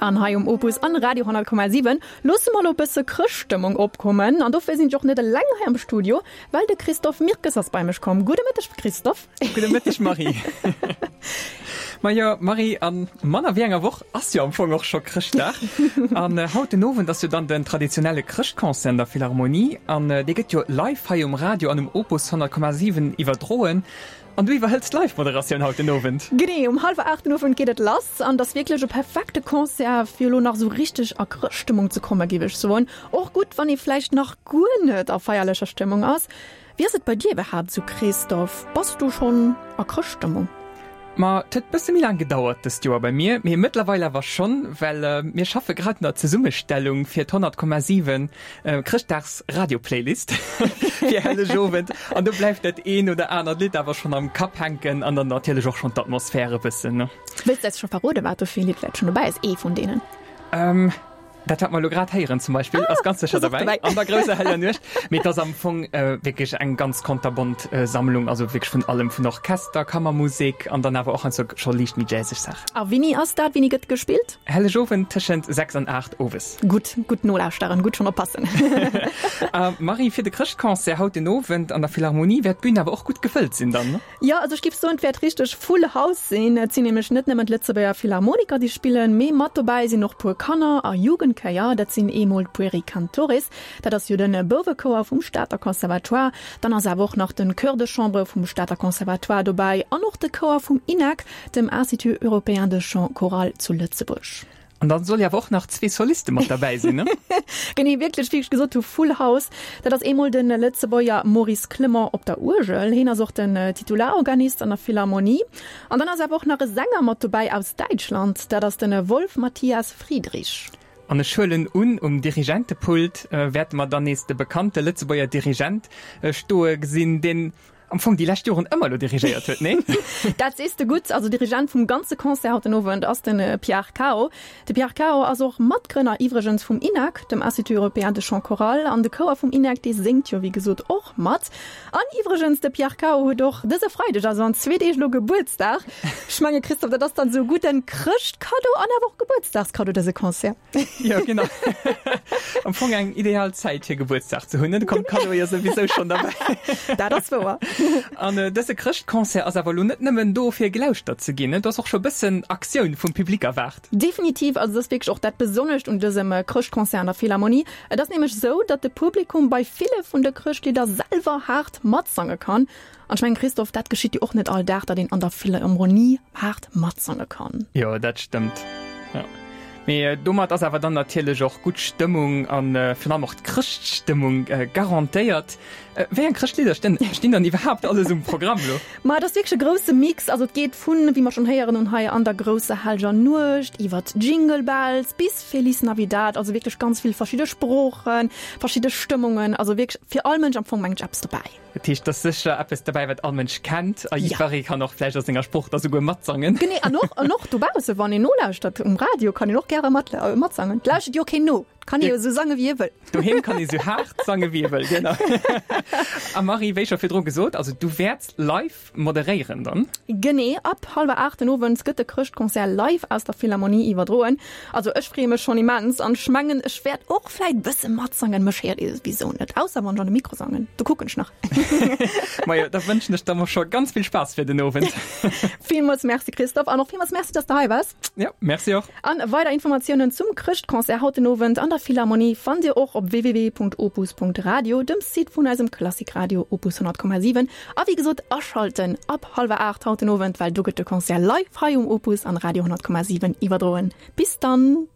An hei um Opus an Radio 10,7 loosse mer lo bësse Chrëschtstëmmung opkommen. An dofir sinn ech och net eleng hei am Studio, well de Christophe Mirkes ass bei mech komm. Gudde Mëtteg Christophe. Gudde Mëtteg Marie. Majo Marie, a manner wéi enger Woch ass jo am Fong och scho Chrëschtdag. An haut den Owend ass jo dann den traditionelle Chrëschtconcert an der Philharmonie an dee gëtt jo live hei um Radio an um Opus 100,7 iwwerdroen. An du iwwerhëls d'Live-Moderatioun haut den Owend? Genee, um hallwer 8 den Owend geet et lass an et ass wierklech e perfekte Concert fir elo nach esou richteg a Chrëschtstëmmung ze kommen, géif ech soen. Och gutt, wann ee vläicht nach guer net a feierlecher Stëmmung ass. Wéi ass et bei dir iwwerhaapt esou, Christophe? Bass du schonn a Chrëschtstëmmung? Ma et huet bësse méi laang gedauert dëst Joer bei mir, mee mëttlerweil awer schonn, well mir schaffe grad un der Zesummestellung fir d'100,7 Chrëschtdags Radio Playlist fir Hellegowend an do bleift dat een oder anert Lidd awer schonn am Kapp hänken an dann natierlech och schonn d'Atmosphär e bëssen, ne? Wëlls de eis scho verroden, wat do fir e Lidd vläicht schonn dobäi ass, ee vun deenen? Dat wat mer elo grad héieren zum Beispill ass ganz sécher dobäi, An der grousser heller Nuecht. Mee et ass am Fong wierklech eng ganz konterbont Sammlung, also wierklech vun allem, vun Orchester, Kammermusek an dann awer och heiansdo scho liicht méi jazzeg Saachen. A wéini ass dat? Wéini gëtt gespillt? Hellegowend tëschent 6 an 8 owes. Gutt, gutt nolauschteren, gutt schonn oppassen. A Marie, fir de Chrëschtconcert haut den Owend an der Philharmonie wäert d'Bün awer och gutt gefëllt sinn dann, ne? Jo, also ech giff soen, et wäert richteg full house sinn. Et sinn nämlech net nëmmen d'Lëtzebuerger Philharmoniker, déi spillen, mee mat dobäi sinn och puer Kanner a Jugendchéier. Dat sinn eemol d'Pueri Cantores, dat ass jo de Bouwechouer vum Stater Conservatoire. Dann ass awer och nach de Chœur de Chambre vum Stater Conservatoire dobäi an och de Chouer vum INAC, dem Institut Européen de Chant Choral zu Lëtzebuerg. An dann soll jo awer och nach zwee Soliste mat derbäi sinn, ne? Genee, wierklech, wéi ech gesot hu, Full House. Dat ass eemol de Lëtzebuerger Maurice Clement op der Uergel. Hien ass och den Titularorganist an der Philharmonie. An dann ass awer och nach e Sänger mat dobäi aus Däitschland. Dat ass de Wolf Matthias Friedrich. An ech huelen un, um Dirigentepult wäerte mer dann nees de bekannte Lëtzebuerger Dirigent stoe gesinn, deen am Fong déi lescht Joren ëmmer elo dirigéiert huet, nee? Dat sees de gutt. Also Dirigent vum ganze Concert haut den Owend ass de Pierre Cao. De Pierre Cao ass och Matgrënner iwwregens vum INAC, dem Institut Européen de Chant Choral. An de Chouer vum INAC, dee séngt jo wéi gesot och mat. An iwwregens, de Pierre Cao huet och dëse Freideg, also an zwee Deeg elo, Gebuertsdag. Ech menge Christophe, dat ass dann esou e gudden Chrëschtkaddo an awer och Gebuertsdagskaddo, dëse Concert. Jo, genau. Am Fong eng ideal Zäit fir Gebuertsdag ze hunn, ne? Do kommt d'Kaddo jo souwisou schonn derbäi. Dat ass wouer. An dëse Chrëschtconcert ass awer elo net nëmmen do fir gelauschtert ze ginn, ne? Do ass och scho bëssen Aktioun vum Public erwaart. Definitiv, also et ass wierklech och dat Besonnescht un dësem Chrëschtconcert an der Philharmonie. Et ass nämlech esou, datt de Publikum bei ville vun de Chrëschtlidder selwer haart matsange kann. An ech mengen, Christophe, dat geschitt jo och net all Dag, datt een an der Philharmonie haart matsange kann. Jo, dat stëmmt. Jo. Mee domat ass awer dann natierlech och gutt Stëmmung a virun allem och d'Chrëschtstëmmung garantéiert. Wéi eng Chrëschtlidder stinn stinn dann iwwerhaapt alles um Programm elo? Ma et ass wierklech e grousse Mix. Also et geet vun, wéi mer schonn héieren hunn hei, An der grousser hellger Nuecht iwwert Jingle Bells bis Feliz Navidad. Also wierklech ganz vill verschidde Sproochen, verschidde Stëmmungen. Also wierklech fir all Mënsch am Fong, mengen ech, eppes dobäi. Dat heescht, et ass sécher eppes derbäi, wat all Mënsch kennt a jiddweree kann och vläicht a senger Sprooch da souguer matsangen. Genee, an och, an och dobausse, wann een nolauschtert um Radio, kann een och gäre mat, matsangen. Et lauschtert jo keen no, et kann ee jo esou sange wéi ee wëll. Doheem kann ee sou haart sange wéi ee wëll, genau. A Marie, wéi scho virdru gesot, also du wäerts live Moderéieren dann. Genee, ab hallwer 8 den Owend gëtt de Chrëschtconcert live aus der Philharmonie iwwerdroen. Also ech freeë mech schonn immens an ech mengen ech wäert och vläit bësse matsangen. Mech héiert ee souwisou net, ausser wann ech an de Mikro sangen, do kucken ech nach. Majo, da wënschen ech der mol scho ganz vill Spaass fir den Owend. Villmools Merci Christophe an och villmools Merci, dass de hei waars. Jo, Merci och. An weider Informatiounen zum Chrëschtconcert haut den Owend an der Philharmonie fannt Dir och op www.opus.radio, dem Site vun eisem Klassikradio Opus 100,7. A wéi gesot, aschalten ab hallwer 8 haut den Owend, well do gëtt de Concert live hei um Opus an Radio 100,7 iwwerdroen. Bis dann!